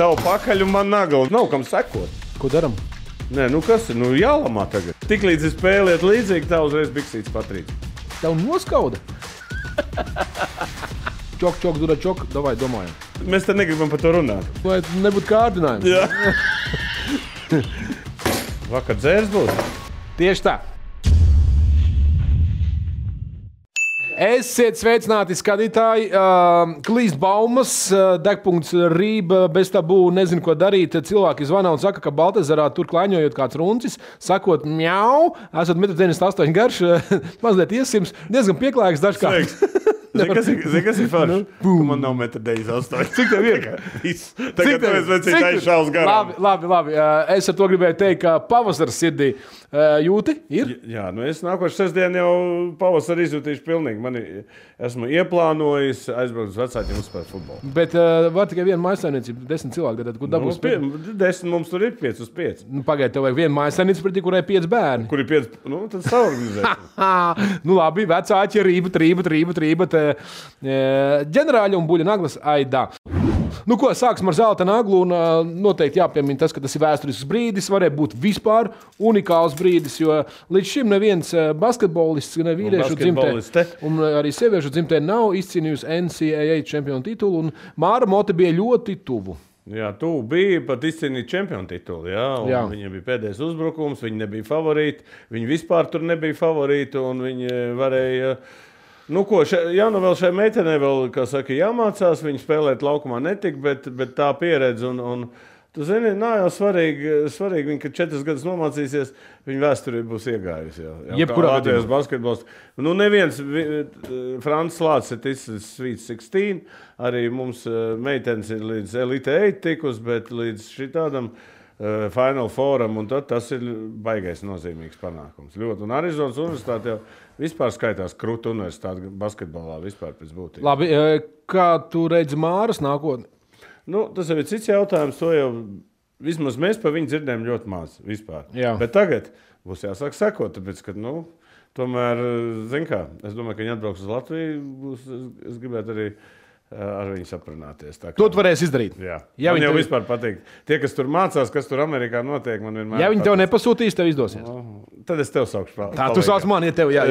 tavu pakaļ un man nagla. Nav kam sekot. Ko daram? Nē, nu kas ir? Nu jālamā tagad. Tiklīdz es spēliet līdzīgi, tā uzreiz biksītes patrīt. Tev noskauda? Čok, dura čok, davai domājam. Mēs te negribam par to runāt. Vai nebūtu kārdinājums? Jā. Vakar dzērs būs? Tieši tā. Esiet sveicināti, skatītāji. Klīst baumas, degpunkts rība, bez tabū, nezinu, ko darīt. Cilvēki zvana un saka, ka Baltezerā tur klaiņojot kāds runcis, sakot mjau, esat 1,98 m garš, mazliet iesims, diezgan pieklājīgs dažkārt. Zini, kas ir forši? Man nav 1,98 m. Cik tev ir? Tagad mēs vecīt aizšaus garām. Labi. Es ar to gribēju teikt, ka pavasars sirdī jūti ir? Jā, nu es nākošu sestdienu jau pavasaru izjūtīšu pilnīgi. Esmu ieplānojis aizbraukt uz vecākiem uzspēlēt futbolu. Bet var tikai viena mājassaimniecība, 10 cilvēki, tad kur dabūs? 10 mums tur ir 5 uz 5. Nu, pagaid, tev vajag viena mājassaimniecība, pretī kurai 5 bērni. Kur ir 5? Nu, tad saorganizēsim. Nu labi, vecāķi, rība. Ģenerāļi un buļļa naglas aidā. Nu ko, sāksim ar zelta naglu un noteikti jāpiemina tas, ka tas ir vēsturisks brīdis, varēja būt vispār unikāls brīdis, jo līdz šim neviens basketbolists, ne vīriešu dzimtē un arī sieviešu dzimtē nav izcīnījusi NCAA čempionu titulu un Māra Mote bija ļoti tuvu. Jā, tu bija pat izcīnīt čempionu titulu, jā. Viņiem bija pēdējais uzbrukums, viņi nebija favorīti, viņi vispār tur nebija favorīti un viņi varēja... Nu ko, vēl šai meitenei vēl, kā saka, jāmācās, viņa spēlēt laukumā netika, bet tā pieredze un tu zini, nav jau svarīgi viņa, kad 4 gadus nomācīsies, viņa vēsturī būs iegājusi. Jebkurā Latvijas basketbols. Nu neviens, Francis Lācis ir ticis Sweet 16, arī mums meitenes ir līdz Elite 8 tikus, bet līdz šitādam Final Forum, un tad tas ir baigais nozīmīgs panākums. Ļoti, un Arizonas universitāte jau vispār skaitās krūta universitāte basketbolā vispār pēc būtības. Labi, kā tu redzi Māras nākotni? Nu, tas jau ir cits jautājums, to jau vismaz mēs par viņu dzirdējam ļoti maz vispār. Jā. Bet tagad būs jāsāk sekot, tāpēc, ka, tomēr, zin kā, es domāju, ka viņi atbrauks uz Latviju, es gribētu arī ar viņu saprunāties. To tu varēsi izdarīt. Jā. Man jau vispār patīk. Tie, kas tur mācās, kas tur Amerikā notiek, man vienmēr ja viņi tev nepasūtīs, tev izdosies. Tad es tev saukšu. Tā, tu sauc mani, ja tev, jā.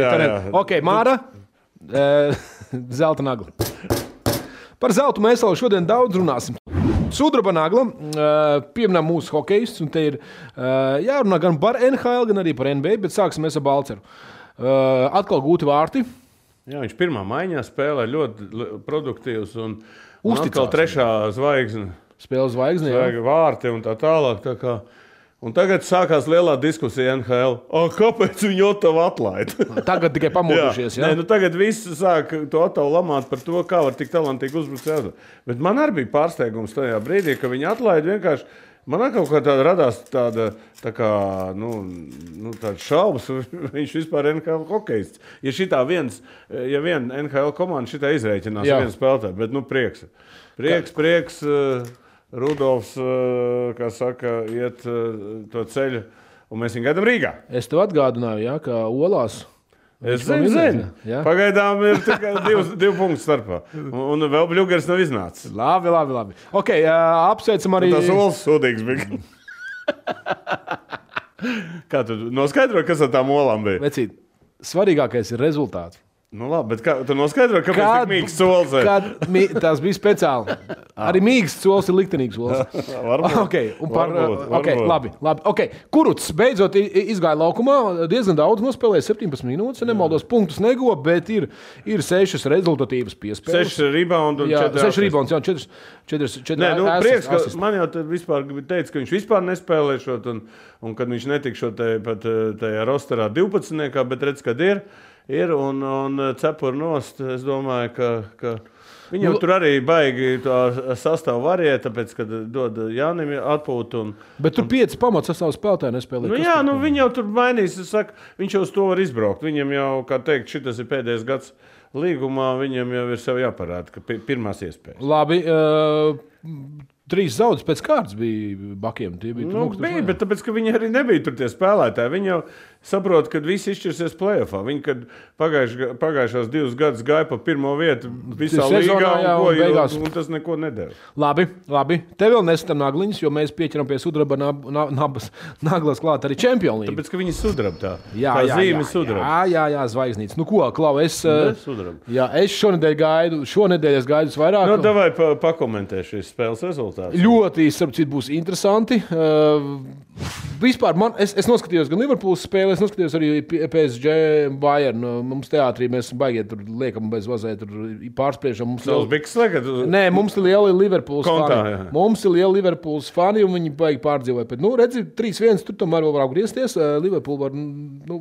Ok, Māra, zelta nagla. Par zeltu mēs vēl šodien daudz runāsim. Sudraba nagla, pieminām mūsu hokejistus, un te ir jārunā gan par NHL, gan arī par NBA, bet sāksim mēs ar Balceru. Atkal gūti vārti. Jā, viņš pirmā maiņā spēlē ļoti produktīvs un atkal trešā zvaigzne. Spēles zvaigzne, jā. Vārti un tā tālāk. Tā kā. Un tagad sākās lielā diskusija NHL. Kāpēc viņi Otavu atlaid? Tagad tikai pamodušies, jā? Nē, tagad visi sāk to Otavu lamāt par to, kā var tik talantīgi uzbrukt. Bet man arī bija pārsteigums tajā brīdī, ka viņi atlaid vienkārši. Man kaut kā tāda radās tāda šaubas, viņš vispār NHL hokejists. Ja viena NHL komanda šitā izreikinās vienu spēlētāju, bet prieks, Rudolfs, kā saka, iet to ceļu, un mēs viņu gaidām Rīgā. Es tev atgādināju, ka Olās. Es zinu. Pagaidām ir tikai 2 punktu starpā. Un vēl Bļugers nav iznācis. Labi. Ok, apsveicam arī... Tas Olas sūdīgs bija. Kā tu noskaidroji, kas ar tām olām bija? Vecīt, svarīgākais ir rezultāts. Nu labi, bet tu noskaidroji, kāpēc tik mīgs sols ir? Tas bija speciāli. Arī mīgs sols ir liktenīgs sols. Varbūt. Labi. Okay. Kuruts beidzot izgāja laukumā, diezgan daudz nospēlēja, 17 minūtes, nemaldos, punktus neguva, bet ir 6 rezultatīvas piespēles. 6 rebounds un 4 6 rebounds, jā, 4 Nē, prieks, ka man jau vispār teica, ka viņš vispār nespēlēšot, un kad viņš netikšot tajā rosterā 12, bet redz, kad ir un cepur nost, es domāju, ka viņam tur arī baigi to sastāvu variet, tāpēc, kad dod Jānim atpūtu. Bet tur 5 pamats sastāvu spēlētāji nespēlē. Viņi jau tur mainīs, viņš jau uz to var izbraukt. Viņam jau, kā teikt, šitas ir pēdējais gads līgumā, viņam jau ir sev jāparāda, ka pirmās iespējas. Labi, 3 zaudus pēc kārtas bija Bakiem. Bija, bet tāpēc, ka viņi arī nebija tur tie spēlētāji. saprotu, ka visi izšķirsies play-offā. Viņi, kad pagājušās 2 gadus gāja pa pirmo vietu visā līgā, un tas neko nedēļ. Labi. Te vēl nesitam nagliņus, jo mēs pieķeram pie sudraba naglas klāt arī Champions League. Tāpēc, ka viņi sudraba tā. Tā zīme sudraba. Jā, zvaigznīts. Nu ko, Klau, es šonedēļ es gaidu vairāk. Nu, davai pakomentēšu šīs spēles rezultātus. Ļoti, starp citu, būs interesanti. Vispār es noskatījos gan Liverpools spēli, es noskatījos arī PSG Bayern. Mums teātrī mēs baigiet tur liekam bez vazē, tur pārspriešam. Nē, mums ir lieli Liverpools fani. Mums ir lieli Liverpools fani, un viņi baigi pārdzīvoja. Bet, redzi, 3-1, tur tomēr vēl var griezties. Liverpool var,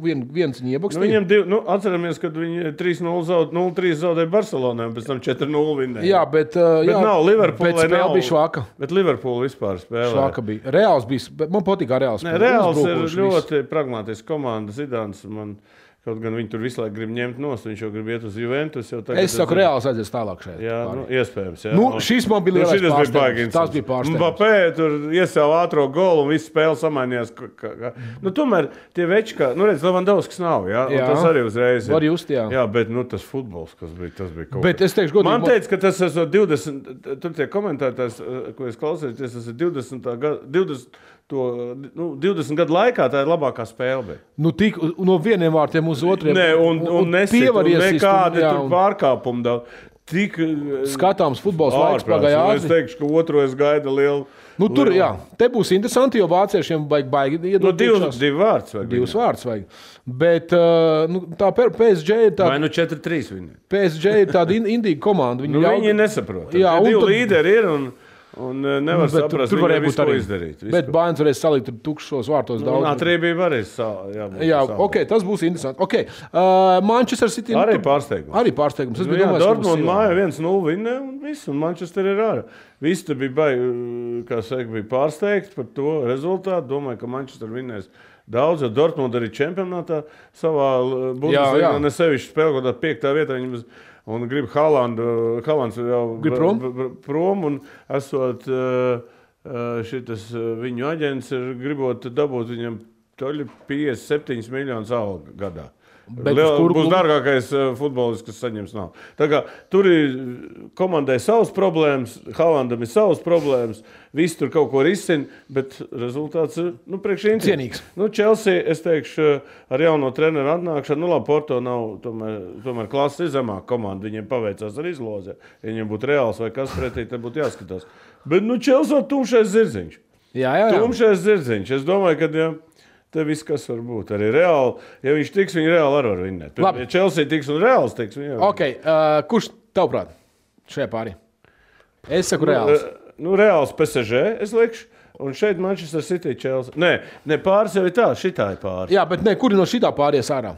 viens viņi iebakstīja. Viņiem atceramies, kad viņi 0-3 zaudēja Barcelonai, un pēc tam 4-0 vinnēja. Jā, bet nav Liverpool, bet spēle bija švaka. Bet Liverpool vispār spēlē. Švaka bija. Reāls bija, man patīk Reāls. Reāls ir ļoti pragmātisks komanda. Zidāns man kaut gan viņi tur visu laiku grib ņemt nost, viņš jau grib iet uz Juventus. Es saku, Reāls aizies tālāk šeit. Jā, iespējams. Jā. Šis man bija lielais pārsteigums. Tas bija pārsteigums. Mbappé tur iesāva ātro golu un visu spēli samainījās. Tomēr tie veči, kā, redz, Levandovskis nav, jā? Un tas arī uzreiz ir. Var just, jā. Jā, bet tas futbols, kas bija, tas bija kaut bet es teikšu, godīgi. Man teica, ka tas esot 20, tur tie komentētājs, ko es klausījos, tas ir 20 gadu laikā tā ir labākā spēle. Tik no vieniem vārtiem uz otriem. Nē, un nesit, un nekādi tur pārkāpumi daudz. Tik skatāms futbols laiks pagāja ātri. Es teikšu, ka otro es gaidu lielu. Tur, jā, te būs interesanti, jo vāciešiem baigi iedot divi vārds vajag. Divus vārds vajag. Bet tā PSG ir tāda... Vai 4-3 viņi? PSG ir tāda indīga komanda. Viņi nesaprot. Divi līderi ir un nevar saprast, tur varēja būt ko izdarīt. Bet Bayerns varēs salikt tukšos vārtos daudz. Atrībī varēs jā, ok, tas būs interesanti. Ok, Manchester City... Arī pārsteigums. Dortmund māja 1-0 vinnē un viss, un Manchester ir ārā. Visi te bija pārsteigti par to rezultātu. Domāju, ka Manchester vinnēs daudz, jo Dortmund arī čempionātā savā Bundesligā nesevišķi spēlē, kaut kā 5. vietā viņam un grib Haalands jau prom, un esot šitas viņu aģents ir gribot dabūt viņam 57 miljonus algu gadā. Būs dārgākais futbolists, kas saņems nav. Tā kā tur ir komandai savas problēmas, Haalandam ir savas problēmas, visi tur kaut ko risina, bet rezultāts ir, priekš cienīgs. Chelsea, es teikšu, ar jauno treneru atnākšanu, labi, Porto nav, tomēr klases ir zemāk komanda, viņiem paveicās ar izlozē. Ja viņiem būtu Reāls vai kas pretī, tad būtu jāskatās. Bet, Chelsea tumšais zirdziņš. Jā. Tumšais zirdziņš. Es domāju, ka, te viss, kas var būt. Arī Reāli, ja viņš tiks, viņi Reāli arī var vinnēt. Ja Chelsea tiks un Reāls tiks, viņi ok, kurš tavuprāt šajā pārī? Es saku Reāls. Reāls PSG, es likšu. Un šeit Manchester City, Chelsea. Nē, pāris jau ir tā, šitā ir pāris. Jā, bet kuri no šitā pāries ārā?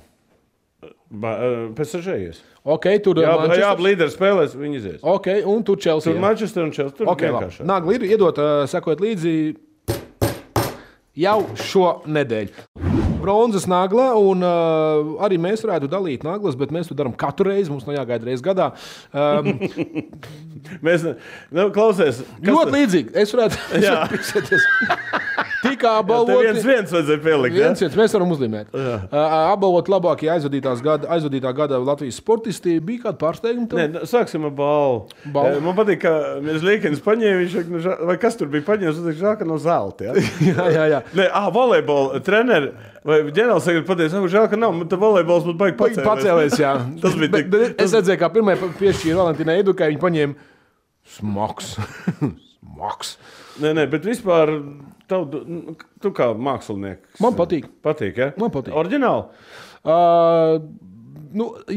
PSG ies. Ok, tur Manchester. Jā, līderi spēlēs, viņi izies. Ok, un tur Chelsea. Tur Manchester un Chelsea. Tur vienkāršāk. Nagli ir iedot, sekot līdzi jau šo nedēļu. Bronzas nagla, un arī mēs varētu dalīt naglas, bet mēs to darām katru reizi. Mums nav jāgaida reizi gadā. Mēs klausies. Ļoti līdzīgi. Es varētu piksēties. Tikā apbalvot. Viens vajadzēja pielikt. Viens, mēs varam uzlīmēt. Apbalvot labākie aizvadītā gada Latvijas sportisti. Bija kāda pārsteiguma? Nē, sāksim ar balvu. Man patīk, ka mēs Līkenis paņēma, vai kas tur bija paņēmis, un žēl, ka no zelta. Jā. Nē, volejbola treneri. Vai ģenerālsekretārs pateica, žēl, ka nav, tad volejbols būtu baigi pacēlēs. Jā. Tas bija tik. Es redzēju, kā pirmie piešķīra Valentīnai Edukai, viņi paņēma smags. Nē, bet vispār tu kā mākslinieks. Man patīk. Patīk, ja? Man patīk. Oriģināli?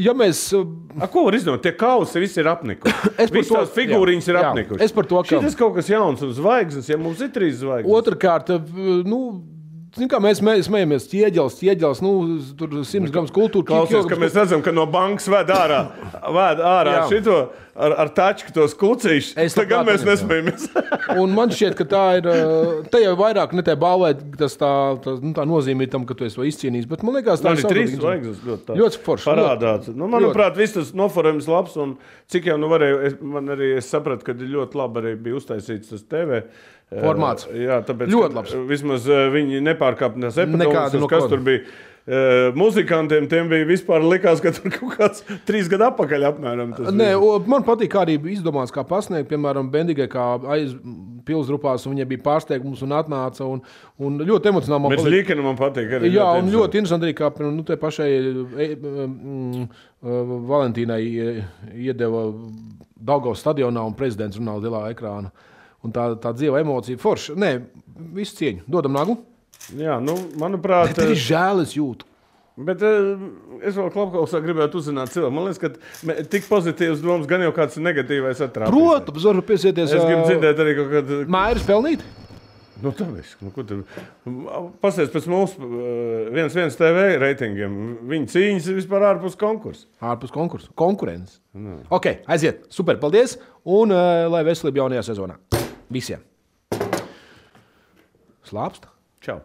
Ja mēs... Ko var izdomāt? Tie kausi visi ir apnikuši. Visas tās figūriņas ir apnikuši. Es par to, ka... Šitas kaut kas jauns un zvaigznes, ja mums ir 3 zvaigznes. Otrkārt, kā mēs smējamies, ķieģels, tur 100 grams kultūra. Klausies, ka mēs redzam, ka no bankas ved ārā šito ar tačku tos klucīšus. Tagad mēs nesmējamies. Un man šķiet, ka tā ir, te jau vairāk ne te balvēt, tas tā nozīmē tam, ka tu esi to izcīnījis, bet man liekas, tā ir 3 zvaigznes ļoti forši. Parādāts. Manuprāt, viss tas noforējums labs, un cik jau varēju, es sapratu, ka ļoti labi arī bija uztaisīts tas TV. Formāts. Jā, tāpēc, ļoti labs. Vismaz viņi nepārkāpnās epidēmijas, kas tur bija. Muzikantiem tiem bija vispār likās, ka tur kaut kāds 3 gadu atpakaļ apmēram. Man patīk, kā arī izdomās, kā pasniegt, piemēram, Bendigai, kā aiz pilsdrupās, un viņai bija pārsteigums un atnāca, un ļoti emocionāli man patīk. Bet Līkena man patīk arī. Jā, un ļoti interesanti arī, kā te pašai Valentīnai iedeva Daugavas stadionā un prezidents runā uz lielā ekrāna. Un tā dzīva emocija forša. Nē, visu cieņu. Dodam nagu. Jā, manuprāt... Bet ir žēl, es jūtu. Bet es vēl Klapkausā gribētu uzzināt cilvēku. Man liekas, ka tik pozitīvs domas gan jau kāds negatīvais atrāpīs. Protams, varu piesieties. Es gribu dzirdēt arī kaut kādu... Mājas pelnīt? Tā viss. Ko tur... Pasies pēc mūsu 1 TV reitingiem. Viņa cīņas ir vispār ārpus konkursa. Ārpus konkursa. Konkurences. Ok, aiziet. Super, paldies. Un lai veselība jaunajā sezonā. Visiem. Slāpst? Čau.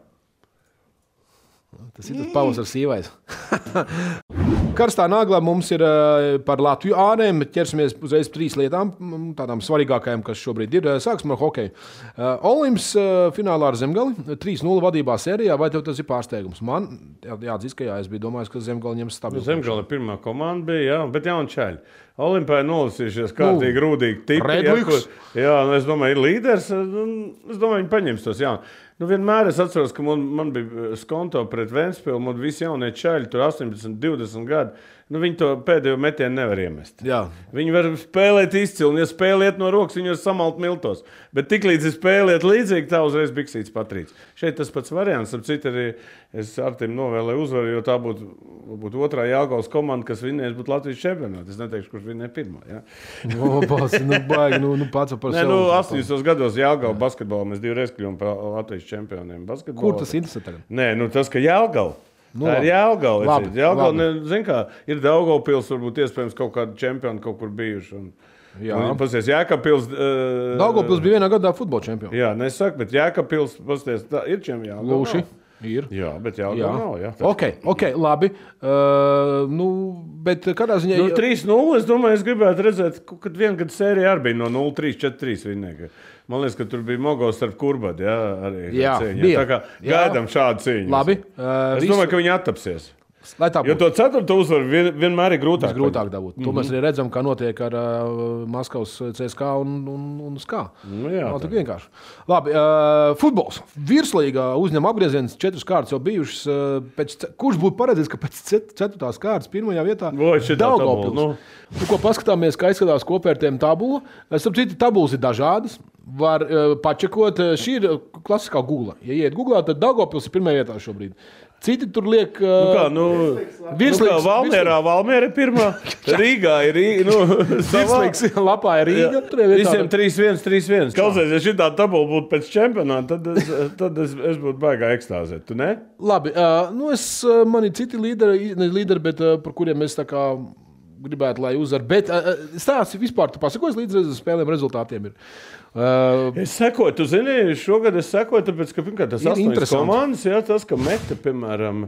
Tas ir tas pavasars sīvais. Karstā naglā mums ir par Latviju ārēm. Ķersimies uzreiz 3 lietām, tādām svarīgākajām, kas šobrīd ir. Sāksim ar hokeju. Olimps finālā ar Zemgali, 3-0 vadībā sērijā. Vai tev tas ir pārsteigums? Man jāatzīst, ka jā, es biju domājis, ka Zemgali ņems stabilu. Zemgali pirmā komanda bija, jā, bet jauni čaļi. Olimpā nolasījušies kārtīgi rūdīgi tipi. Jā, es domāju, ir līderis. Es domāju, viņi paņems tos jauni. Vienmēr es atceros, ka man bija skonto pret Ventspili, man visi jaunie čaļi, tur 18, 20 gadi. Viņi to pēdējo metienu nevar iemest. Jā. Viņi var spēlēt izcili, un ja spēlēt no rokas, viņi var samalt miltos. Bet tiklīdz ir spēlēt līdzīgi, tā uzreiz biksīts patrīts. Šeit tas pats variants, ap citu arī es Artim novēlēju uzvaru, jo tā būtu otrā Jelgavas komanda, kas vinnēs būtu Latvijas čempionātā. Es neteikšu, kurš vinnē pirmā. Ja? Baigi, pats par sevi. 80. gados Jelgava basketbolā mēs 2 reizes kļuvām par Latvijas čempioniem basketbolā. Kur tas interesē tagad? Nē, tas, ka Jelgava. Tā ir Jelgava. Ir Daugavpils, varbūt iespējams kaut kādi čempioni kaut kur bijuši. Pasies, Jēkabpils... Daugavpils bija vienā gadā futbola čempioni. Jā, nesaku, bet Jēkabpils, pasies, ir čempioni. Lūši. Ir. Jā, bet Jelgava nav. Jā. Ok, labi. Bet kādā ziņā... 3-0, es domāju, es gribētu redzēt, kad viena gada sērija arī bija no 0-3, 4-3 vinnēja. Man liekas, ka tur bija Mogos starp Kurbadu, arī cīņa. Tā kā gaidām šādu cīņu. Labi. Es domāju, ka viņi attapsies. Jo to 4. uzvaru vienmēr ir grūtāk. Grūtāk dabūt. To mēs arī redzam, kā notiek ar Maskavas CSKA un SKA. Nav tik vienkārši. Labi, futbols. Virslīgā uzņem apgrieziens 4 kārtas jau bijušas. Kurš būtu paredzējis, ka pēc 4. kārtas pirmajā vietā Daugavpils? Ko paskatāmies, kā izskatās kopvērtējuma tabula. Starp citu, tabulas ir dažādas. Var pačekot. Šī ir klasiskā Google. Ja iet Googlā, tad Daugavpils ir pirmajā vietā šobrīd. Citi tur liek... Valmiera ir pirmā. Rīgā ir Rīga. Virslīgs lapā ir Rīga. Visiem 3-1, 3-1. Klausies, ja šitā tabula būtu pēc čempionāta, tad es būtu baigā ekstāzēt. Tu ne? Labi. Man ir citi līderi, bet par kuriem es tā kā gribētu, lai uzvar. Bet stāsti vispār, tu pasakos līdz spēlēm rezultātiem ir. Es sekoju, tu zini, šogad es sekoju, tāpēc, ka pirmkārt tas 8 komandas, jā, tas, ka Meta, piemēram,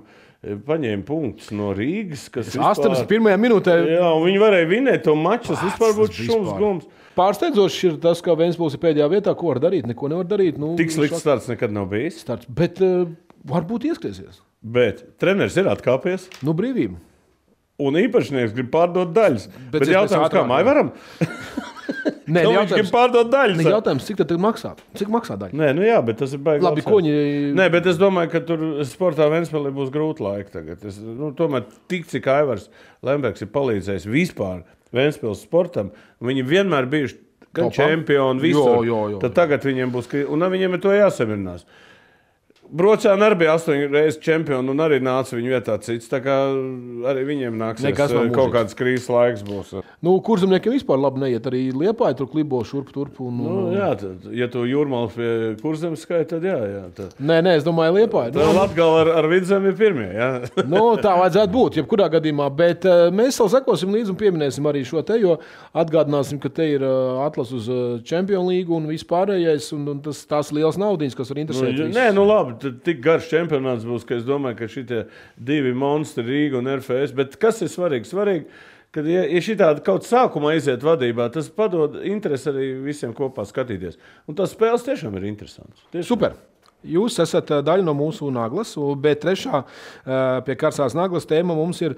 paņēma punktus no Rīgas, kas 81. minūtē. Jā, un viņi varēja vinēt to maču, tas vispār būtu šums gums. Pārsteidzoši ir tas, ka Ventspils ir pēdējā vietā, ko var darīt, neko nevar darīt. Tik slikts starts nekad nav bijis. Bet varbūt ieskriesies. Bet treneris ir atkāpies. Brīvība. Un īpašnieks grib pārdot daļas. Bet jautājums, kā māj varam? Nē, viņš grib pārdot daļas. Jautājums, cik tad maksā? Cik maksā daļa? Nē, jā, bet tas ir baigi. Labi, koņi... Nē, bet es domāju, ka tur sportā Ventspilī būs grūti laiki tagad. Tomēr tik, cik Aivars Lembergs ir palīdzējis vispār Ventspils sportam, viņi vienmēr bijuši gan čempioni visur. Tad tagad viņiem būs, un viņiem ir to jāsamierinās. Brocēni arī bija 8 reizes čempioni un arī nāca viņu vietā cits. Tā kā arī viņiem nāksies kaut kāds krīzes laiks būs. Kurzemniekiem vispār labi neiet. Arī Liepāja tur klibo šurp turp. Jā, ja tu Jūrmals pie Kurzemes skaita, tad jā. Nē, es domāju Liepāja. Tad Latgala ar Vidzemi ir pirmie, jā. Tā vajadzētu būt, jebkurā gadījumā. Bet mēs vēl sekosim līdzi un pieminēsim arī šo te, jo atgādināsim, ka te ir atlas uz Champions League un vispārējais. Un tās liels naudiņas, kas var interesēt. Nē, labi. Tik garš čempionāts būs, ka es domāju, ka šitie 2 monstri, Rīga un RFS. Bet kas ir svarīgi? Svarīgi, ka ja šitādi kaut sākumā iziet vadībā, tas padod interesi arī visiem kopā skatīties. Un tās spēles tiešām ir interesants. Super. Jūs esat daļa no mūsu naglas, bet trešā pie karsās naglas tēma mums ir,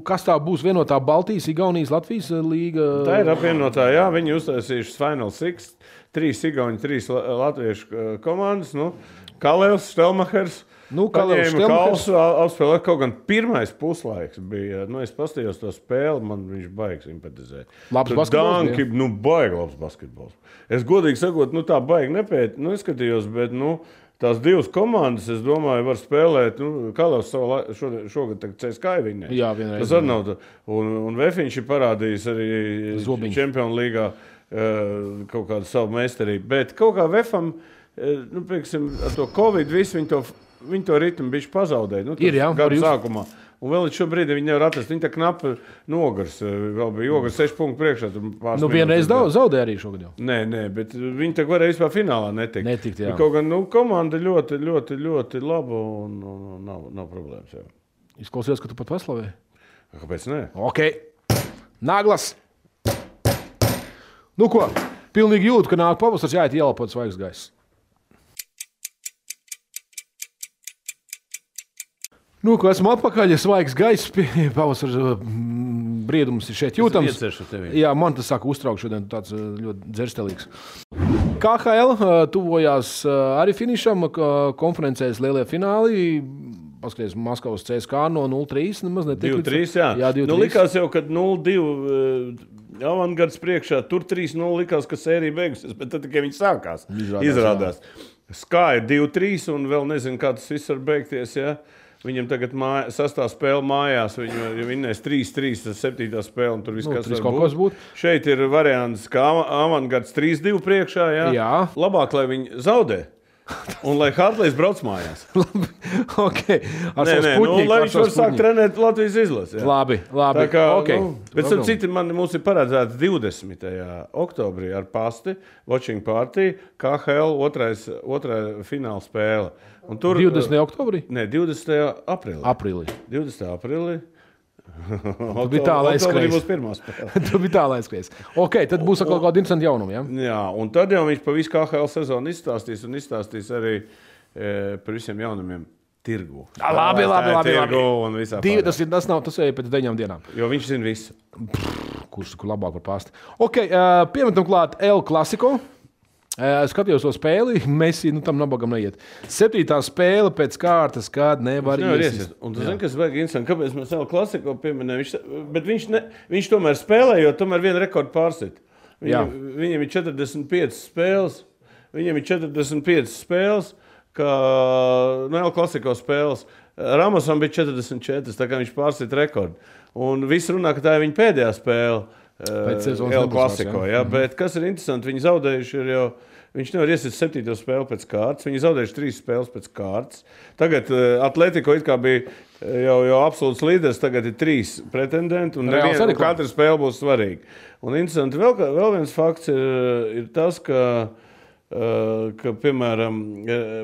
kas tā būs vienotā Baltijas, Igaunijas, Latvijas līga? Tā ir apvienotā, jā, viņi uztaisījuši Final Six, 3 Igauni, 3 latviešu komandas, Kalevs, Štelmachers. Kalevs, Štelmachers apspēlē, kaut gan pirmais puslaiks bija, es pastījos to spēli, man viņš baigs simpatizēt. Labs basketbols? Danki, baigi labs basketbols. Es godīgi sakot, tā baigi nepēt, neskatījos, bet, tās 2 komandas, es domāju, var spēlēt, Kalevs šogad CSKA viņai. Jā, vienreiz. Tas arī nav, un Vefiņš ir parādījis arī Čempionu līgā kaut kādu savu meistarību, bet kaut kā Vefam, pieksim, ar to Covid visu viņi to ritmu bišķi pazaudēja. Gadu sākumā. Un vēl līdz šobrīd viņi nevar atrast. Viņi tā knapi nogars. Vēl bija Ogars 6 punktu priekšā. Vienreiz zaudēja arī šogad jau. Nē, bet viņi tā varēja vispār finālā netikt. Jā. Kaut gan komanda ļoti, ļoti, ļoti laba un nav problēmas. Jā. Izklausījās, ka tu pat paslavēji. Kāpēc ne? Ok. Naglas. Ko? Pilnīgi jūtu, ka nāk pavasars jāiet ielapot svaigs gaiss. Ko esmu atpakaļ, svaigs gaiss, pavasara briedums ir šeit jūtams. Jā, man tas saka uztraukt šodien, tāds ļoti dzerstelīgs. KHL tuvojās arī finišam, konferencēs lielie fināli. Paskaties, Maskavas CSKA no 0-3. 2-3, jā. Jā, 2-3. Likās jau, kad 0-2 Avangards priekšā, tur 3-0 likās, ka sērija beigusies, bet tad tikai viņi sākās. Izrādās. Skā ir 2-3 un vēl nezinu, kā tas viss var beigties, jā. Viņam tagad sastā spēle mājās, viņi vinnēs 3-3, tas 7. spēle, un tur viss, kas var būt. Šeit ir variants, ka Avangards 3-2 priekšā, jā. Labāk, lai viņi zaudē, un lai Hartlejs brauc mājās. Ok. Lai viņš var sākt trenēt Latvijas izlasi. Labi. Tā kā, okay. Bet starp citu, mums ir paredzēts 20. oktobrī ar pasti, watching party, KHL otrā fināla spēle. Un tur, 20. oktobrī? Nē, 20. aprīlī. 20. aprīlī. Tu biji tālāk aizskrējis. Būs pirmā spēle. Tu biji tālāk aizskrējis. Ok, tad būs kaut kāda interesanta jaunuma, jā? Jā, un tad jau viņš pa visu KHL sezonu izstāstīs arī par visiem jaunumiem tirgu. Labi. Tas ir pēc 9 dienām. Jo viņš zina visu. Kurš labāk par pasti. Ok, piemetam klāt El Clasico. Skatījos to spēli, Messi tam nabagam neiet. 7. spēle pēc kārtas, kad nevar iesist. Un tu zini, kas vajag interesanti, kāpēc mēs El Clasico pieminējam, bet viņš tomēr spēlē, jo tomēr vienu rekordu pārsit. Viņam ir 45 spēles, kā El Clasico spēles. Ramosam bija 44, tā kā viņš pārsit rekordu. Un viss runā, ka tā ir viņa pēdējā spēle. El Clasico, bet kas ir interesanti, viņi zaudējuši ir jau, viņš nevar iesist 7. spēli pēc kārtas, viņi zaudējuši 3 spēles pēc kārtas. Tagad Atletico it kā bija jau absolūts līderis, tagad ir 3 pretendenti, un katra spēle būs svarīga. Un interesanti, vēl viens fakts ir tas, ka piemēram,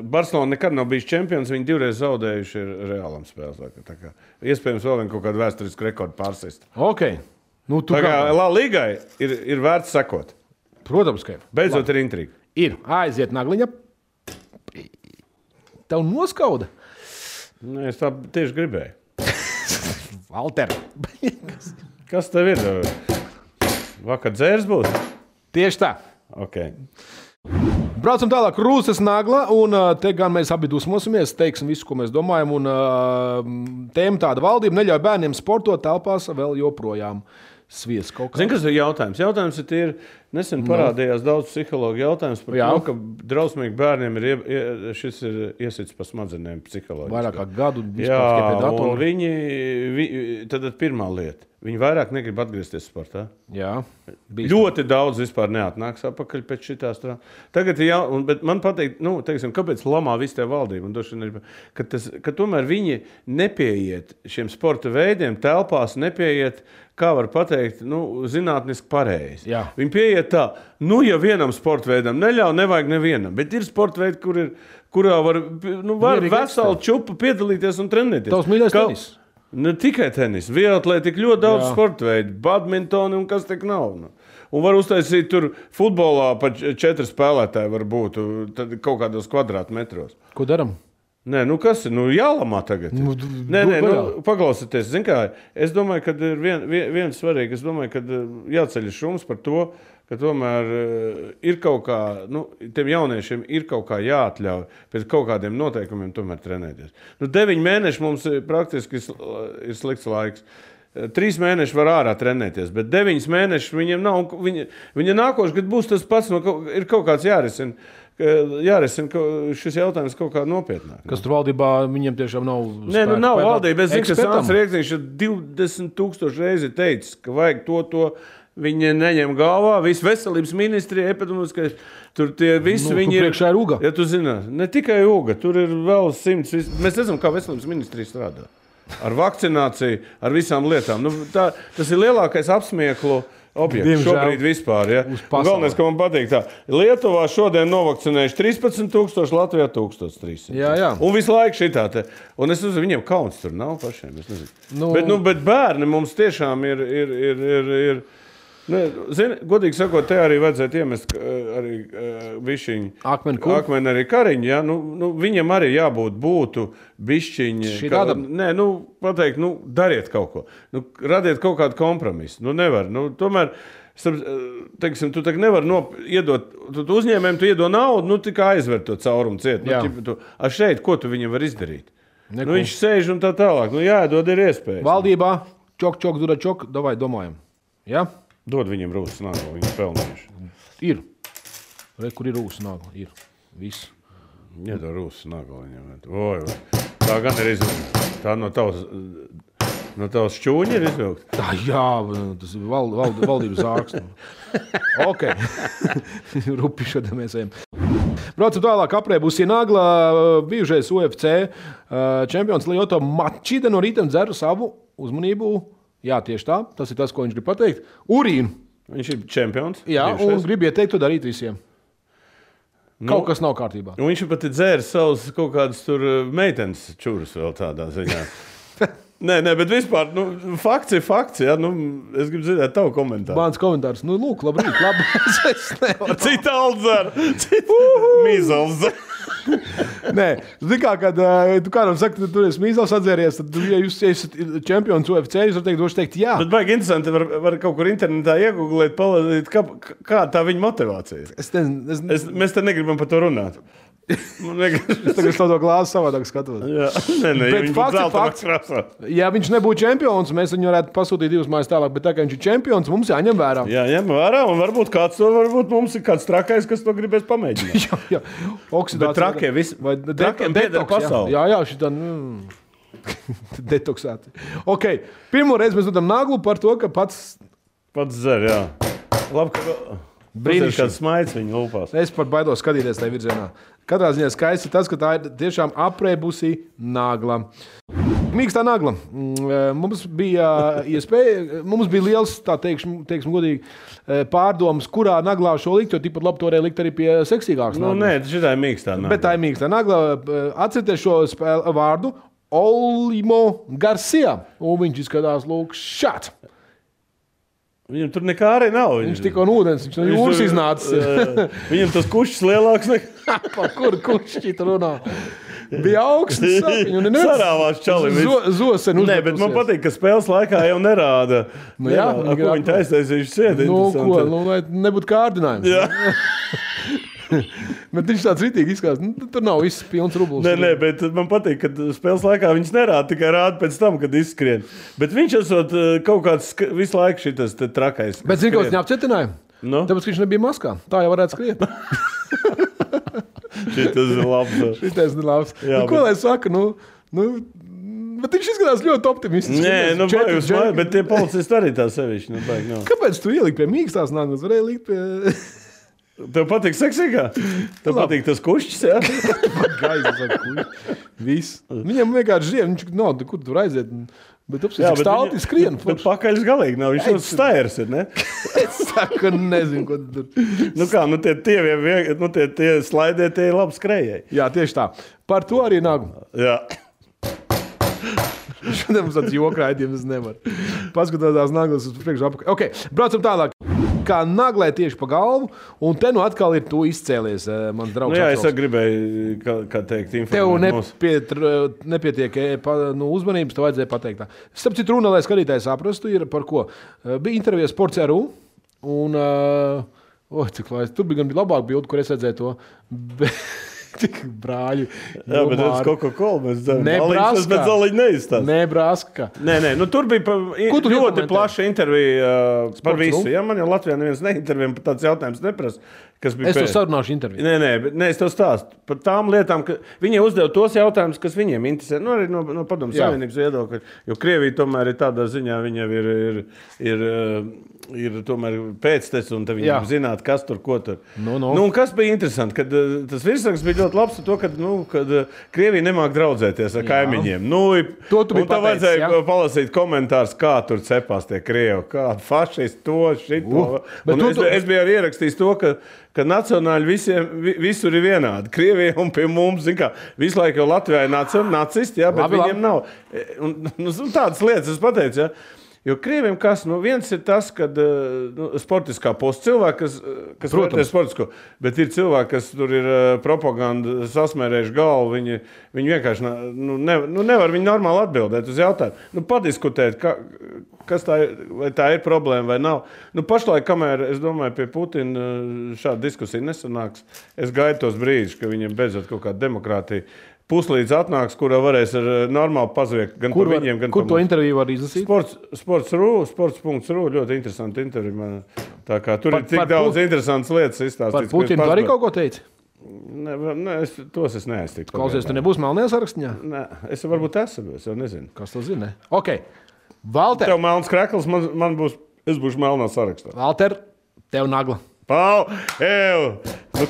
Barcelona nekad nav bijis čempions, viņi 2 reizes zaudējuši Realam spēles. Tā kā iespējams vēl vien kaut kādu vēsturisku rekordu pārsist. Ok. Tā kā La Ligai ir vērts sekot. Protams, ka ir. Beidzot ir intriga. Ir. Aiziet nagliņa. Tev noskauda? Nē, es tā tieši gribēju. Valter. Kas tev ir? Vakar dzērs būs? Tieši tā. Ok. Braucam tālāk, Rūsas nagla, un te gan mēs abi dusmosimies, teiksim visu, ko mēs domājam, un tēma tāda: valdība neļauj bērniem sportot telpās vēl joprojām. Svies kaut kā. Zini, kas ir jautājums? Jautājums ir, nesen parādījās daudz psihologu jautājums par to, ka drausmīgi bērniem šis ir iesits pa smadzenēm psiholoģiski. Vairāk kā gadu vispār pie datora. Un viņi, tad pirmā lieta, viņi vairāk negrib atgriezties sportā. Jā. Ļoti daudz vispār neatnāks atpakaļ pēc šitās tā. Tagad ir bet man pateikt, teiksim, kāpēc lamā visu tie valdību? Ka tomēr viņi nepieiet šiem sporta veidiem, telpās nepieiet, kā var pateikt, zinātniski pareizi. Jā. Viņi pieiet tā, ja vienam sporta veidam neļauj, nevajag nevienam, bet ir sporta veidi, kurā var veselu čupu piedalīties un trenēties. Tavs mīļais tenis? Ne tikai tenis, vieglatlētika ļoti daudz sporta veidu, badmintoni un kas tik nav. Un var uztaisīt tur futbolā pa 4 spēlētāji var būt tad kaut kādos kvadrātmetros. Ko daram? Nē, nu kas ir? Nu jālamā tagad. Nē, paklausieties. Zin kā, es domāju, ka ir viens svarīgi. Es domāju, ka jāceļ šums par to, ka tomēr ir kaut kā, tiem jauniešiem ir kaut kā jāatļauj pēc kaut kādiem noteikumiem tomēr trenēties. 9 mēneši mums praktiski ir slikts laiks. 3 mēneši var ārā trenēties, bet 9 mēneši viņiem nav. Viņa nākošais, kad būs tas pats, ir kaut kāds jārisina šis jautājums kaut kā nopietnāk. Kas tur valdībā viņiem tiešām nav spēka? Nē, nav valdība. Es zinu, ka Sāns Rieksniņš ir 20,000 reizi teicis, ka vajag to. Viņi neņem galvā, visu veselības ministrija, epidemioloģiskais, tur tie visi viņi ir. Priekšā ir uga. Ja tu zini, ne tikai uga, tur ir vēl 100. Mēs redzam, kā veselības ministrija strādā. Ar vakcināciju, ar visām lietām. Tas ir lielākais apsmieklu objekts šobrīd vispār. Ja? Galvenais, ka man patīk tā. Lietuvā šodien novakcinējuši 13,000, Latvijā 1,300. Jā. Un visu laiku šitā te. Un es uzinu, viņiem kauns tur nav pašiem, es nezinu. Bet bērni mums tiešām ir Zini, godīgi sakot, te arī vajadzētu iemest arī bišķiņu. Akmeni arī Kariņu, ja? Viņam arī būtu bišķiņi. Pateikt, dariet kaut ko. Radiet kaut kādu kompromisu. Nevar. Tomēr, teiksim, tu tagad nevar iedot, tu uzņēmējiem tu iedod naudu, tikai aizver to caurumu ciet. A šeit, ko tu viņam var izdarīt? Viņš sēž un tā tālāk. Jāiedod ir iespējas. Valdībā, čok, dura čok, davai domājam. Ja? Dod viņam rūsas nāglu, viņi pelnījuši. Ir. Kur ir rūsas nāgla? Ir. Viss. Iedod rūsas nāglu viņam. Tā gan ir izvilkta. Tā no tavas šķūņa ir izvilkta. Tā, jā, tas ir valdības zārks. Ok. Rupi šodien mēs ejam. Braucam tālāk, aprē būs Nagla, bijušais UFC čempions Lyoto Machida no rīta dzer savu uzmanību. Jā, tieši tā. Tas ir tas, ko viņš grib pateikt. Urīnu. Viņš ir čempions. Jā, un grib ieteikt to darīt visiem. Kaut kas nav kārtībā. Un viņš pat ir dzēris savus kaut kādus tur meitenes čurus vēl tādā ziņā. Nē, bet vispār, fakts ir fakts, ja? Es gribu dzirdēt tavu komentāru. Mans komentārs, lūk, labrīt, es nevaru. Cita aldzer, mīzals dzer. Nē, zini kā, kad tu kādam saki, ka tu esi mīzals atzēries, tad, ja jūs esat čempions UFC, jūs varat teikt jā. Bet baigi interesanti, var kaut kur internetā iegooglēt, palasīt, kā tā viņa motivācija. Mēs te negribam par to runāt. Es tagad to glāzi savādāk skatos. Jā, bet fakts. Ja viņš nebūtu čempions, mēs viņu varētu pasūtīt 2 mājas tālāk, bet tā kā viņš ir čempions, mums jāņem vērā. Jā, ņem vērā, un varbūt mums ir kāds trakais, kas to gribēs pamēģināt. jā. Oksidācija. Bet trakie visi. Trakiem pieder pasauli. Jā, šitā detoksēti. Ok, pirmo reizi mēs dodam Naglu par to, ka pats dzer, jā. Labi, ka brīnišķīgi kāds smaids viņa lūpās. Es pat baidos skatīties tajā virzienā. Katrā ziņā skaisti tas, ka tā ir tiešām aprēbusi Nagla. Mīkstā Nagla. Mums bija iespēja, mums bija liels, tā teiksim godīgi, pārdomas, kurā Naglā šo likt, jo tikpat labi to varēja likt arī pie seksīgākas Naglas. Nē, šitā ir Mīkstā Nagla. Bet tā ir Mīkstā Nagla. Atcerieties šo vārdu Olimo Garcia. Un viņš izskatās lūk šāds. Viņam tur nekā arī nav. Viņš tikko no ūdens, viņš no jūras iznācis. Viņam tas kušķis lielāks nekā. Par kuru kušķi tu runā? Bija augsts. Sarāvās čalim. Zosen uzmetusies. Nē, bet man patīk, ka spēles laikā jau nerāda. Jā, ko viņi taisējuši siedi. Lai nebūtu kārdinājums. Jā. Bet viņš tāds ritīgi izskatās. Tur nav viss pilns rublis. Nē, bet man patīk, ka spēles laikā viņš nerāda, tikai rāda pēc tam, kad izskrien. Bet viņš esot kaut kāds visu laiku šitas trakais. Bet zini, ka viņš neapcietināja? Tāpēc, ka viņš nebija maskā. Tā jau varētu skriet. Šitas ir labs. Šitas ir labs. Ko lai saka? Bet viņš izskatās ļoti optimistiski. Nē, bet tie policisti arī tā sevišķi. Kāpēc tu ieliki pie mīkstās Naglas? Varēja likt pie... Tev patīk seksīgā? Tev patīk tas kušķis, jā? Viss. Viņam vienkārši žiem, viņš nav, kur tur aiziet. Bet apsīk stāvti skrien. Bet pakaļs galīgi nav, viņš tāds stairs ir, ne? Es saku, nezinu, ko tur. Tie slaidē, tie ir labi skrējēji. Jā, tieši tā. Par to arī Nagla. Jā. Šodien mums tāds jokrājums nevar. Paskatās tās Naglas uz priekšu apakaļ. Ok, braucam tālāk. kā naglē tieši pa galvu, un te nu atkal ir tu izcēlies, mans draugs. Nu jā, es gribēju, kā teikt, informēt. Tev nepietiek uzmanības, tev vajadzēja pateikt tā. Starp citu runa, lai skatītājs saprastu, ir par ko. Bija intervija Sports.ru, un cik lai, tur bija gan labāk bildi, kur es redzēju to. Tik brāļi. Jā, bet redz Coca-Cola mēs dzeram. Nebraska. Bet zaliņi neizstāst. Nebraska. Nē, nu tur bija ļoti plaša intervija par visu. Ja, man jau Latvijā neviens neintervija, par tāds jautājums neprasa. Es tev sarunāšu interviju. Nē, es tev stāstu par tām lietām, ka viņi uzdev tos jautājumus, kas viņiem interesē. Nu, arī no Padomju Savienības viedokļa. Jo Krievija tomēr ir tādā ziņā, viņam ir tomēr pēctecis, un viņam zināt, kas tur, ko tur. Nu, un kas bija interesanti, kad tas virsraksts bija ļoti labs ar to, kad Krievija nemāk draudzēties ar kaimiņiem. To tu biji pateicis, vajadzēja palasīt komentārus, kā tur cepās tie Krievi, kādi fašisti to, šito. Es biju arī ierakstījis to, ka nacionāļi visur ir vienādi. Krievija un pie mums, zin kā, visu laiku jau Latvijā ir nacisti, jā, bet viņiem nav. Un tādas lietas es pateicu, jā. Jo Krieviem kas, viens ir tas, kad sportiskā posta cilvēki, kas vērtē sportisko, bet ir cilvēki, kas tur ir propaganda sasmērējuši galvu, viņi vienkārši nevar viņi normāli atbildēt uz jautājumu. Padiskutēt, kas tā ir, vai tā ir problēma vai nav. Pašlaik, kamēr, es domāju, pie Putina šāda diskusija nesanāks, es gaidu tos brīžus, ka viņam beidzot kaut kāda demokrātija puslīdz atnāks, kurā varēs ar normāli pazviekt gan par viņiem, gan par mums. Kur to interviju var izlasīt? Sports.ru, ļoti interesanti interviju. Tā kā tur ir tik daudz interesantas lietas izstāstīts. Par Putinu tu arī kaut ko teici? Nē, tos es neaiztiktu. Klausies, tu nebūsi melnajā sarakstā? Nē, es varbūt esmu, es jau nezinu. Kas to zina? Ok, Valter. Tev melns krekls, es būšu melnā sarakstā. Valter, tev nagla. Pau,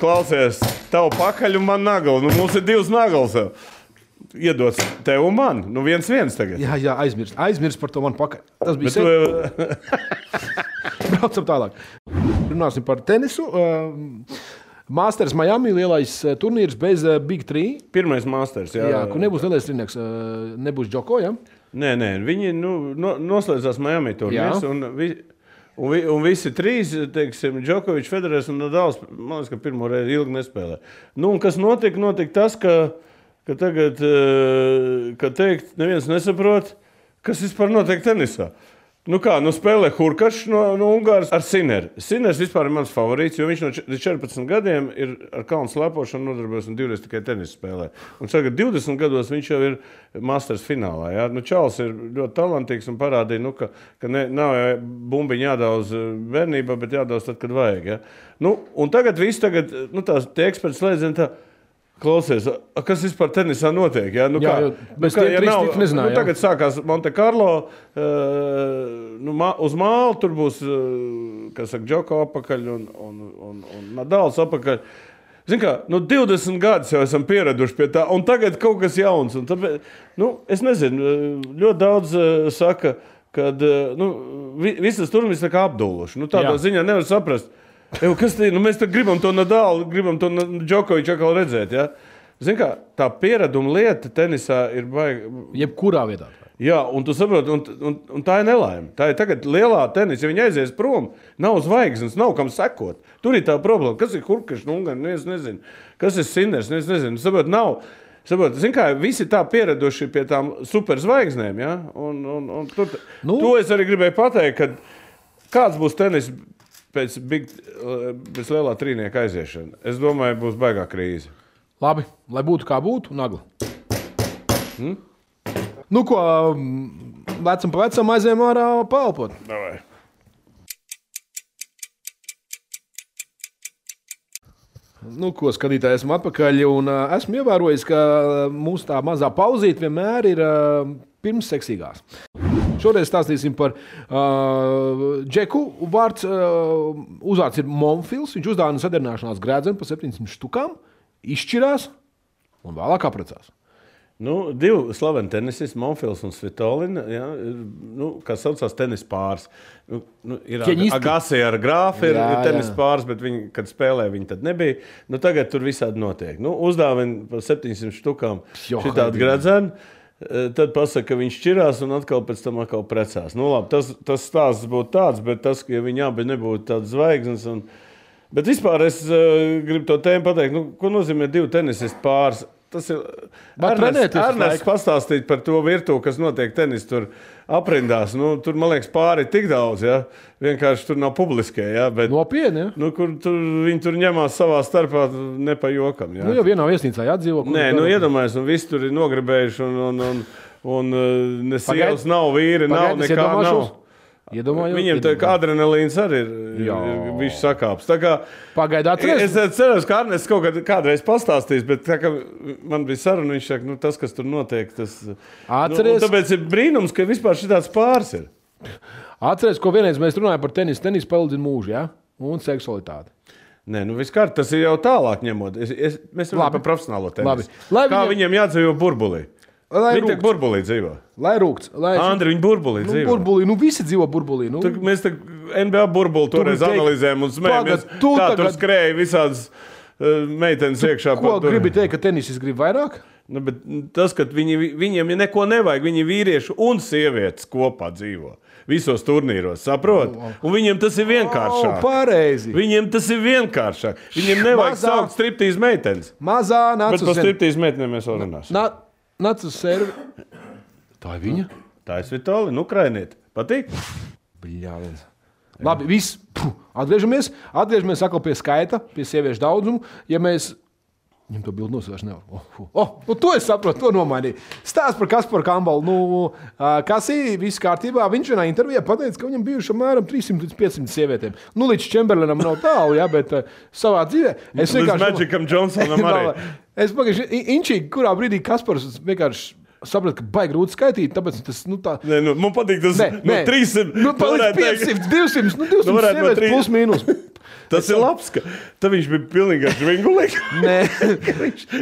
klausies, tev pakaļ un man nagla. Mums ir divas naglas. Iedots tev un man. 1-1 tagad. Jā, aizmirst par to man pakaļ. Tas bija Braucam tālāk. Runāsim par tenisu. Masters Miami, lielais turnīrs bez Big 3. Pirmais Masters, jā. Jā, kur nebūs lielais trinieks, nebūs Džoko, jā? Nē, viņi noslēdzās Miami turnīrs un visi trīs, teiksim, Džokovičs, Federers un Nadals, man liekas, ka pirmo reizi ilgi nespēlē. Un kas notika tas, ka tagad, kad teikt, neviens nesaprot, kas vispār notiek tenisā. Spēlē Hurkačs no Ungāras ar Sineru. Siners vispār ir mans favorīts, jo viņš no 14 gadiem ir ar kalnu slēpošanu nodarbojas un divreiz tikai tenisu spēlē. Un tagad 20 gados viņš jau ir Masters finālā. Jā. Čalis ir ļoti talantīgs un parādīja, ka nav bumbiņa jādauz bērnībā, bet jādauz tad, kad vajag. Jā. Un tagad tie eksperti slēdzien tā, klausies, kas vispār tenisā notiek? Ja? Tagad sākās Monte Carlo, uz māla tur būs, Džoko apakaļ un Nadals apakaļ. Zin kā, 20 gadus jau esam pieraduši pie tā, un tagad kaut kas jauns. Un tāpēc, es nezinu, ļoti daudz saka, kad visas turnīrs tā kā apduluši. Tādā ziņā nevar saprast. Kas te ir? Mēs gribam to Nadalu, gribam to Džokoviču atkal redzēt. Ja? Zini kā, tā piereduma lieta tenisā ir baigi. Jebkurā vietā. Jā, un tu saproti, un tā ir nelaime. Tā ir tagad lielā tenisa, ja viņi aizies prom, nav zvaigznes, nav kam sekot. Tur ir tā problēma. Kas ir Hurkačs, es nezinu. Kas ir Siners, es nezinu. Saproti, nav. Zini kā, visi tā pieraduši pie tām superzvaigznēm. Ja? To es arī gribēju pateikt, ka kāds būs tenis pēc lielā trīnieka aiziešana. Es domāju, būs baigā krīze. Labi, lai būtu kā būtu, nagla. Vecam pa vecam aizējām ārā paelpot. Davai. Skatītāji, esmu atpakaļ un esmu ievērojis, ka mūsu tā mazā pauzīte vienmēr ir pirms seksīgās. Šoreiz stāstīsim par Džeku. Uzvārds ir Monfils. Viņš uzdāvina sadarināšanās grēdzenu par 700 štukām, izšķirās un vēlāk apprecās. Divi slaveni tenisisti, Monfils un Svitolina, ja, kas saucās tenis pāris. Ir Agassi ar Grāfi ir tenis pāris, bet viņi, kad spēlē, viņi tad nebija. Tagad tur visādi notiek. Uzdāvina par 700 štukām šitādu gredzenu. tad pasaka, ka viņš šķirās un atkal pēc tam precās. Nu, labi, tas stāsts būtu tāds, bet tas, ka viņi abi nebūtu tādas zvaigznes. Bet vispār es gribu to tēmu pateikt, ko nozīmē 2 tenisisti pāris. Tas ir Ernests pastāstīt par to virtuvi, kas notiek tenis tur aprindās. Tur, man liekas, pāri ir tik daudz, ja? Vienkārši tur nav publiskie. Ja? Bet, nopietni, ja? Kur viņi tur ņemās savā starpā ne pa jokam. Ja? Jau vienā viesnīcā jādzīvo. Nē, iedomājies, un visi tur ir nogribējuši, un ne sievas nav, vīri nav, nekā nav. Viņiem tā kā adrenalīns arī ir viņš sakāps. Pagaid atceries? Es ceru, ka Arnests kādreiz pastāstīs, bet tā kā man bija saruna, viņš saka, tas, kas tur notiek, tas... Atceries? Tāpēc ir brīnums, ka vispār šitāds pāris ir. Atceries, ko vienreiz mēs runājam par tenisu. Tenis palīdz mūžu, ja? Un seksualitāti. Nē, viskārt, tas ir jau tālāk ņemot. Mēs runājam par profesionālo tenisu. Kā viņiem jādzīvo burbulī? Viņi tā burbulī dzīvo. Lai rūgts. Andri, viņi burbulī dzīvo. Burbulī, visi dzīvo burbulī. Mēs NBA burbuli toreiz analizējam un smējamies. Kā tur skrēja visādas meitenes iekšā. Ko gribi teikt, ka tenisis grib vairāk? Bet tas, ka viņiem neko nevajag, viņi vīrieši un sievietes kopā dzīvo. Visos turnīros, saprot? Un viņiem tas ir vienkāršāk. Pareizi. Viņiem tas ir vienkāršāk. Viņiem nevajag saukt striptīz meitenes. Mazā nāc uz Bet par striptīz meitenēm mēs vēl runāsim. Nāc uz servi. Tā ir viņa? Tā ir Svitoli, Ukrainieti. Patīk? Bļāviens. Labi, viss. Atgriežamies atkal pie skaita, pie sieviešu daudzumu. Ja mēs... Viņam to bildu nosvērš nevar. To es saprotu, to nomainīju. Stāsts par Kasparu Kambalu. Kasī, viss kārtībā. Viņš vienā intervijā pateica, ka viņam bijuši apmēram 300 līdz 500 sievietēm. Līdz Čemberlenam nav tālu, ja, bet savā dzīvē... Līdz Magicam Johnsonam arī. Es pagaidu, inčīgi, kurā brīdī Kaspars vienkārši sapratu, ka baigi grūti skaitīt, tāpēc tas, tā... Nē, man patīk tas 300... Palīdz 500, 200, 200 sievietes plus mīnus. Tas ir labs, ka viņš bija pilnīgi žvingulīgs.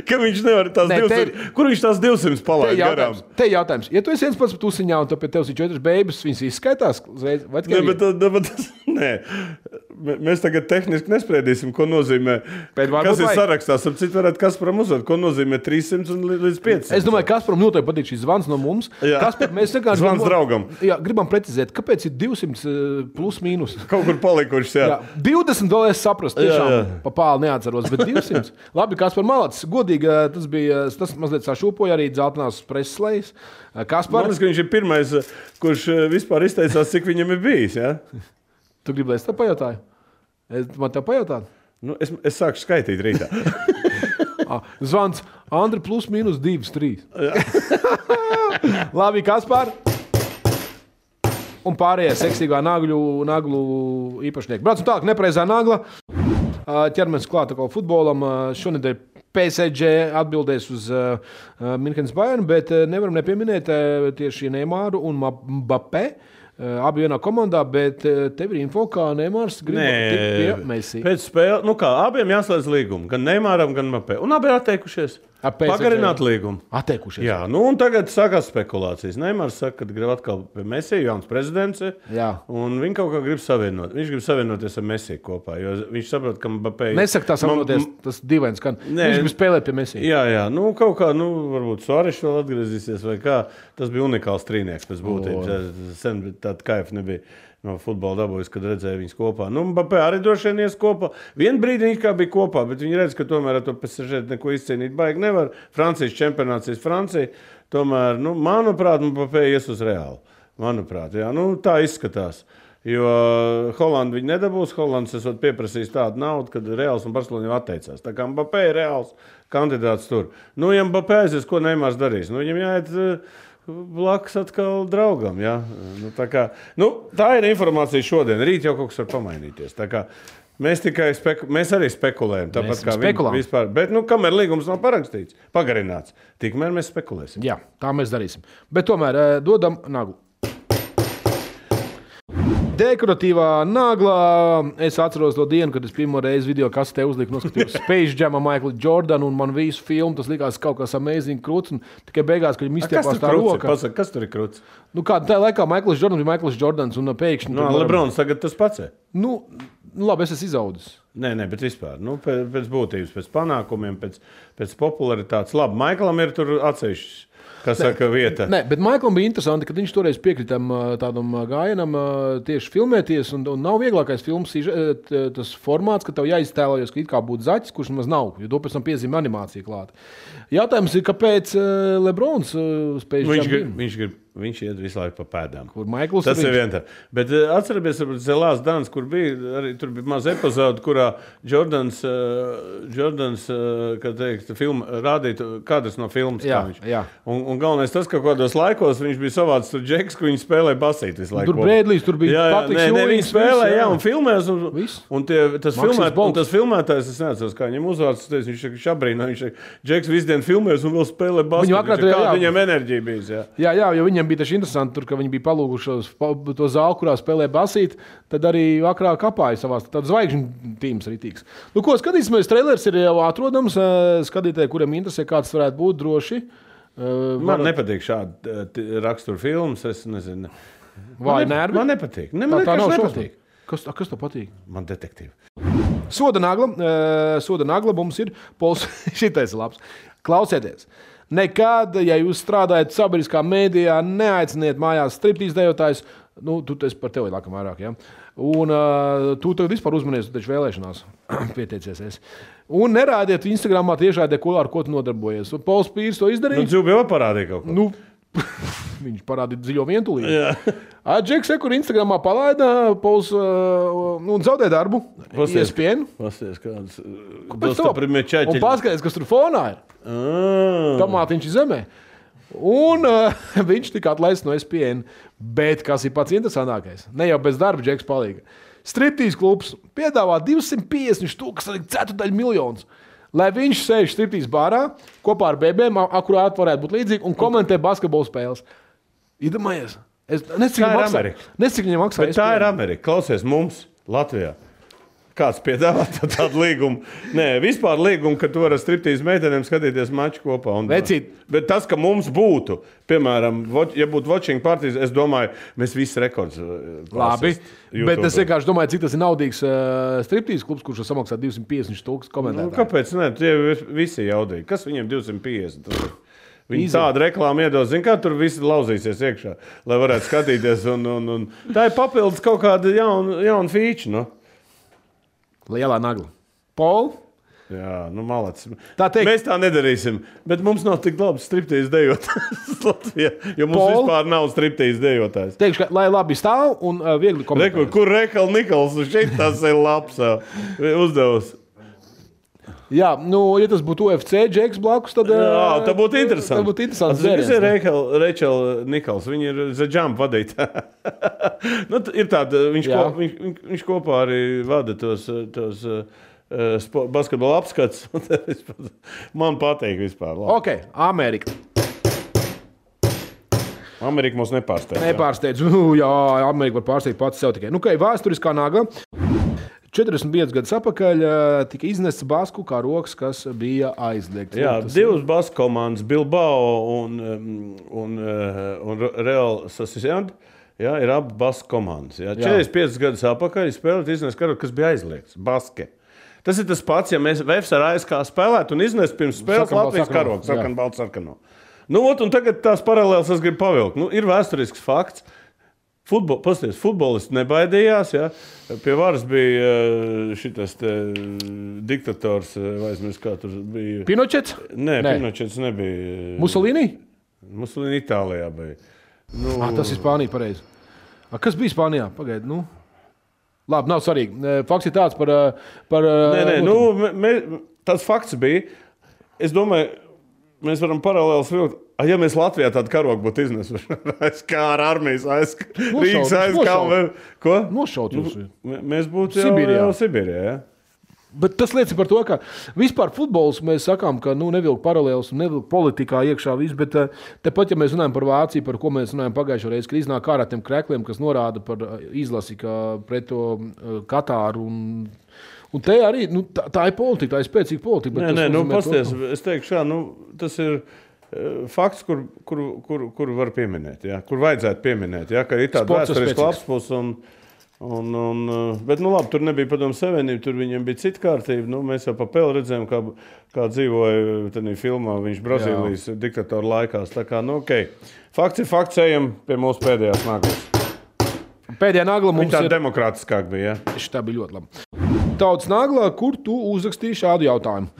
Ka viņš nevar tās 200... Kur viņš tās 200 palaid garām? Te jautājums. Ja tu esi viens pats par tusiņā un pie tevis ir 4 bēbas, viņas izskaitās? Nē, mēs tagad tehniski nespriedīsim, ko nozīmē. Kas ir sarakstā? Citu varētu Kasparam uzdot, ko nozīmē 300 līdz 500. Es domāju, Kasparam noteikti patīk šis zvans no mums. Kaspar, mēs zvans draugam. Jā, gribam precizēt, kāpēc ir 200 plus mīnus? Kaut kur palikušas, jā. 20 dolārs saprast, tiešām pa pāli neatceros, bet 200. Labi, Kaspar Malats, godīgi, tas mazliet sašūpoja arī dzeltenās preses lejas. Kaspar... Man liekas, ka viņš ir pirmais, kurš vispār izteicās, cik viņam ir bijis, jā? Tu gribi, lai es tev pajautāju? Man tev pajautāt? Es sāku skaitīt rītā. Zvans Andri plus mīnus 2, 3. Labi, Kaspar. Un pārējie seksīgā naglu īpašnieki. Braucam tālāk, nepreizā nagla. Ķermies klāt atkal futbolam. Šonedēļ PSG atbildēs uz Minhenes Bayern, bet nevaram nepieminēt tieši Neymaru un Mbappé. Abi vienā komandā, bet tev ir info, kā Neymars grib tikt pie Messi. Pēc spēle, abiem jāslēdz līgumu, gan Neymaram, gan Mbappé. Un abi ir atteikušies. Pagarināt līgumu. Atteikušies. Jā, un tagad sākās spekulācijas. Neymars saka, ka grib atkal pie Messi, jauns prezidents. Jā. Un viņi kaut kā grib savienot. Viņš grib savienoties ar Messi kopā, jo viņš saprot, ka Mbappé... Nesaka tā savienoties, tas dīvains, ka viņš grib spēlēt pie Messi. Jā, kaut kā, varbūt Suareš vēl atgriezīsies vai kā. Tas bija unikāls trīnieks pēc būtības. Sen tāda kaifa nebija. No futbola dabūjas, kad redzēja viņus kopā. Mbappé arī droši vien ies kopā. Vienu brīdi viņi kā bija kopā, bet viņi redz, ka tomēr ar to PSG neko izcīnīt baigi nevar. Francijas čempionāts ir Francija. Tomēr, manuprāt, Mbappé ies uz Reālu. Manuprāt, jā. Tā izskatās. Jo Holanda viņi nedabūs. Holands esot pieprasījis tādu naudu, kad Reāls un Barcelona jau atteicās. Tā kā Mbappé ir Reāls kandidāts tur. Ja Mbappé aizies, ko Neymars darīs? Viņam jāiet... blakus atkal draugam. Ja? Tā ir informācija šodien. Rīt jau kaut kas var pamainīties. Mēs arī spekulējam. Tāpat kā viņi vispār. Bet kamēr līgums nav parakstīts, pagarināts, tikmēr mēs spekulēsim. Jā, tā mēs darīsim. Bet tomēr dodam naglu. Dekoratīvā naglā. Es atceros to dienu, kad es pirmo reizi video kasete uzliku, noskatījos Space Jamā, Michaelu Jordanu un man visu filmu. Tas likās kaut kas amazing krūts. Tikai beigās, kad viņi izstiepās tā roka. Pasaka, kas tur ir krūts? Tā laikā Michaels Jordans bija Michaels Jordans un pēkšņi... Lebrons tagad tas pats. Labi, es esmu izaudzis. Nē, bet vispār. Pēc būtības, pēc panākumiem, pēc popularitātes. Labi, Michaelam ir tur atsevišķis. Kas saka vieta? Nē, bet Maiklam bija interesanti, ka viņš toreiz piekritam tādam gājienam tieši filmēties, un nav vieglākais filmas tas formāts, ka tev jāiztēlojas, ka it kā būtu zaķis, kurš nemaz nav, jo to pēc tam piezīmē animācija klāt. Jautājums ir, kāpēc Lebrons spēj Viņš iet visu laiku pa pēdām. Kur Maikls tas ir viens tā. Bet atceramies, The Last Dance, kur bija, arī tur bija maz epizode, kurā Jordans kā teikt, rādīja kadrs no filmas. Jā. Un galvenais tas, ka kādos laikos viņš bija savāds tur džeks, ka viņi spēlēja basīt visu laiku. Tur Brēdlijs, tur bija Patriks Jūlīns. Viņi spēlēja, un filmēs. Un tas filmētājs, es neatceros, kā viņam uzvārds, viņš šabrīnā, viņš džeks visu dienu filmēs un vēl spēlē basīt. Kāda viņam enerģija bija. Jā, jo viņam bija taču interesanti, tur, ka viņi bija palūguši to zāli, kurā spēlē basīt, tad arī vakarā kapāja savās. Tad zvaigžņu tīms ritīgs. Nu, ko skatīsimies, trailers ir jau atrodams. Skatītāji, kuriem interesē, kāds varētu būt droši. Man nepatīk šādi rakstura filmas, es nezinu. Vai nervi? Man nepatīk. Tā nav nepatīk. Kas tev patīk? Man detektīvi. Soda nagla mums ir Pols. Šitais labs. Klausieties. Nekad, ja jūs strādājat sabiedriskā mēdījā, neaiciniet mājās striptīz dejotājs. Nu, tu esi par tevi laikam vairāk, ja? Un tu tagad vispār uzmanies, tu taču vēlēšanās pieteicies esi. Un nerādiet Instagramā tiešādē, ar ko tu nodarbojies. Un Pols Pīrs to izdarīja. Nu, Dzūbi jau parādīja kaut ko. Viņš parādīja dziļo vientulību. Džeks, kur Instagramā palaida, Pols zaudē darbu. ESPN. Pasties kāds. Un paskaties, kas tur fonā ir. Tomātiņš zemē. Un viņš tika atlaists no ESPN. Bet kas ir pats interesantākais? Ne jau bez darba Džeks palīga. Striptīs klubs piedāvā 250 miljonus. Lai viņš sēž striptīs bārā kopā ar bebēm, akurāt varētu būt līdzīgi, un komentē basketbola spēles. Iedomājies. Es nezinu, viņam maksā. Bet tā ir Amerika. Klausies mums Latvijā. Kāds piedāvā tādu līgumu? Nē, vispār līgumu, ka tu vari ar striptīs meitenēm skatīties maču kopā. Bet tas, ka mums būtu, piemēram, ja būtu watching partijas, es domāju, mēs visi rekords labi, bet es vienkārši domāju, cik tas ir naudīgs striptīs klubs, kurš samaksā 250,000 komentētāju. Nu, kāpēc ne? Tie visi jaudīgi. Kas viņiem 250? Viņi tādu reklāmu iedos, zin kā tur visi lauzīsies iekšā, lai varētu skatīties. Un tā ir papildus kaut kāda jauna feature, no? Lielā nagla. Pol? Jā, malacis. Tā teikt. Mēs tā nedarīsim, bet mums nav tik labs striptīs dejotājs Latvijā, jo mums vispār nav striptīs dejotājs. Teikšu, lai labi stāv un viegli komentēt. Kur Rekal Nikals, šeit tas ir labs uzdevums. Jā, ja tas būtu UFC Džeks blakus, tad... Jā, tā būtu interesanti. Tā būtu interesanti. Tas ir Rachel Nikals, viņa ir The Jump vadītāja. Ir tāda, viņš kopā arī vada tos basketbola apskats. Man patīk vispār. Labi. Ok, Amerika. Amerika mums nepārsteidz. Nepārsteidz. Jā, Amerika var pārsteigt pats sev tikai. Vēsturiskā nagla. 45 gadus atpakaļ tika iznests basku kā rokas, kas bija aizliegts. Jā, divas basku komandas, Bilbao un Real Sociedad, ir abi basku komandas. Jā. 45 gadus atpakaļ spēlēt iznest karogu, kas bija aizliegts. Baske. Tas ir tas pats, ja mēs Vēfs ar ASK spēlētu un iznest pirms spēles Latvijas karogu, sarkan balts sarkano. Un tagad tās paralēlas es gribu pavilkt. Ir vēsturisks fakts. Futbolists nebaidījās. Ja? Pie varas bija šitas diktators, vai aizmirst, kā tur bija. Pinochets? Nē, Pinochets nebija. Mussolini? Mussolini Itālijā bija. Tas ir Spānija, pareizi. Kas bija Spānijā? Pagaid, Labi, nav svarīgi. Fakts ir tāds par tas fakts bija. Es domāju, mēs varam paralēlis vilkt. Ja mēs Latvijā tādu karogu būtu iznesuši, kā ar armijas Rīgas aizskāvu, ko? Nošaut jūs. Mēs būtu jau Sibīrijā, ja? Bet tas liecina par to, ka vispār futbols mēs sakām, ka nevilk paralēlis un nevilk politikā iekšā viss, bet tepat, ja mēs runājam par Vāciju, par ko mēs runājam pagājušo reizi, kad iznāk ārā tiem krekliem, kas norāda par izlasi, ka pret to Katāru un te arī, tā ir politika, tā ir spēcīga politika. Pasties, es teikšu šā, tas ir fakts, kur var pieminēt, ja? Kur vajadzētu pieminēt, ja? Ka ir tāda vēsturiska lapspus Bet, labi, tur nebija Padomju Savienība, tur viņiem bija cita kārtība. Mēs jau pa peli redzējām, kā dzīvoja tajā filmā viņš Brazīlijas diktatora laikās. Tā kā, ok. Fakts ir fakts, ejam pie mūsu pēdējās naglas. Pēdējā nagla mums ir... Tā demokrātiskāk bija, Tā bija ļoti labi. Tautas naglā, kur tu uzrakstīji šādu jautājumu?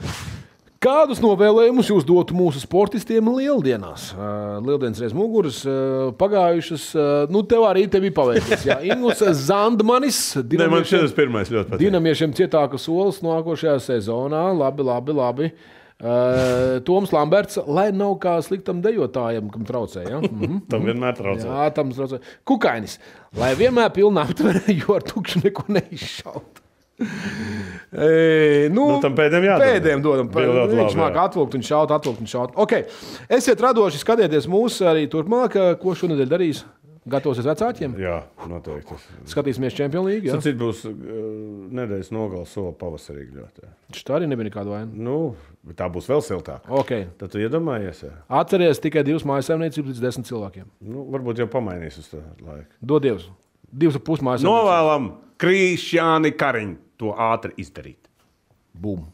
Kādus novēlējumus jūs dotu mūsu sportistiem lieldienās? Lieldienas reiz muguras, pagājušas, tev arī te bija paveicies. Ingus Zandmanis. Man šis pirmais ļoti patīk. Dinamiešiem cietāka solis nākošajā sezonā. Labi. Toms Lamberts, lai nav kā sliktam dejotājam, kam traucē. Ja? Tam vienmēr traucē. Jā, tam traucē. Kukainis, lai vienmēr pilnā aptverē, jo ar tukšu neko neizšaut. Tam pēdējiem dodam. Viņš māk atvilkt un šaut. Okay. Esiet radoši, skatieties mūs arī turpmāk, ko šonedēļ darīs. Gatavosies vecākiem? Jā, noteikti. Skatīsimies Champions League. Ja? Cits būs nedēļas nogals sola pavasarīgi ļoti. Tā arī nebija nekāda vaina. Tā būs vēl siltāk. Okay. Tad tu iedomājies. Jā. Atceries tikai 2 mājassaimniecības līdz 10 cilvēkiem. Varbūt jau pamainīs uz tā laiku. Dod Dievs. 2,5 mājassaimniecības. Novēlam Krišjāni Kariņu to ātri izdarīt. Bum.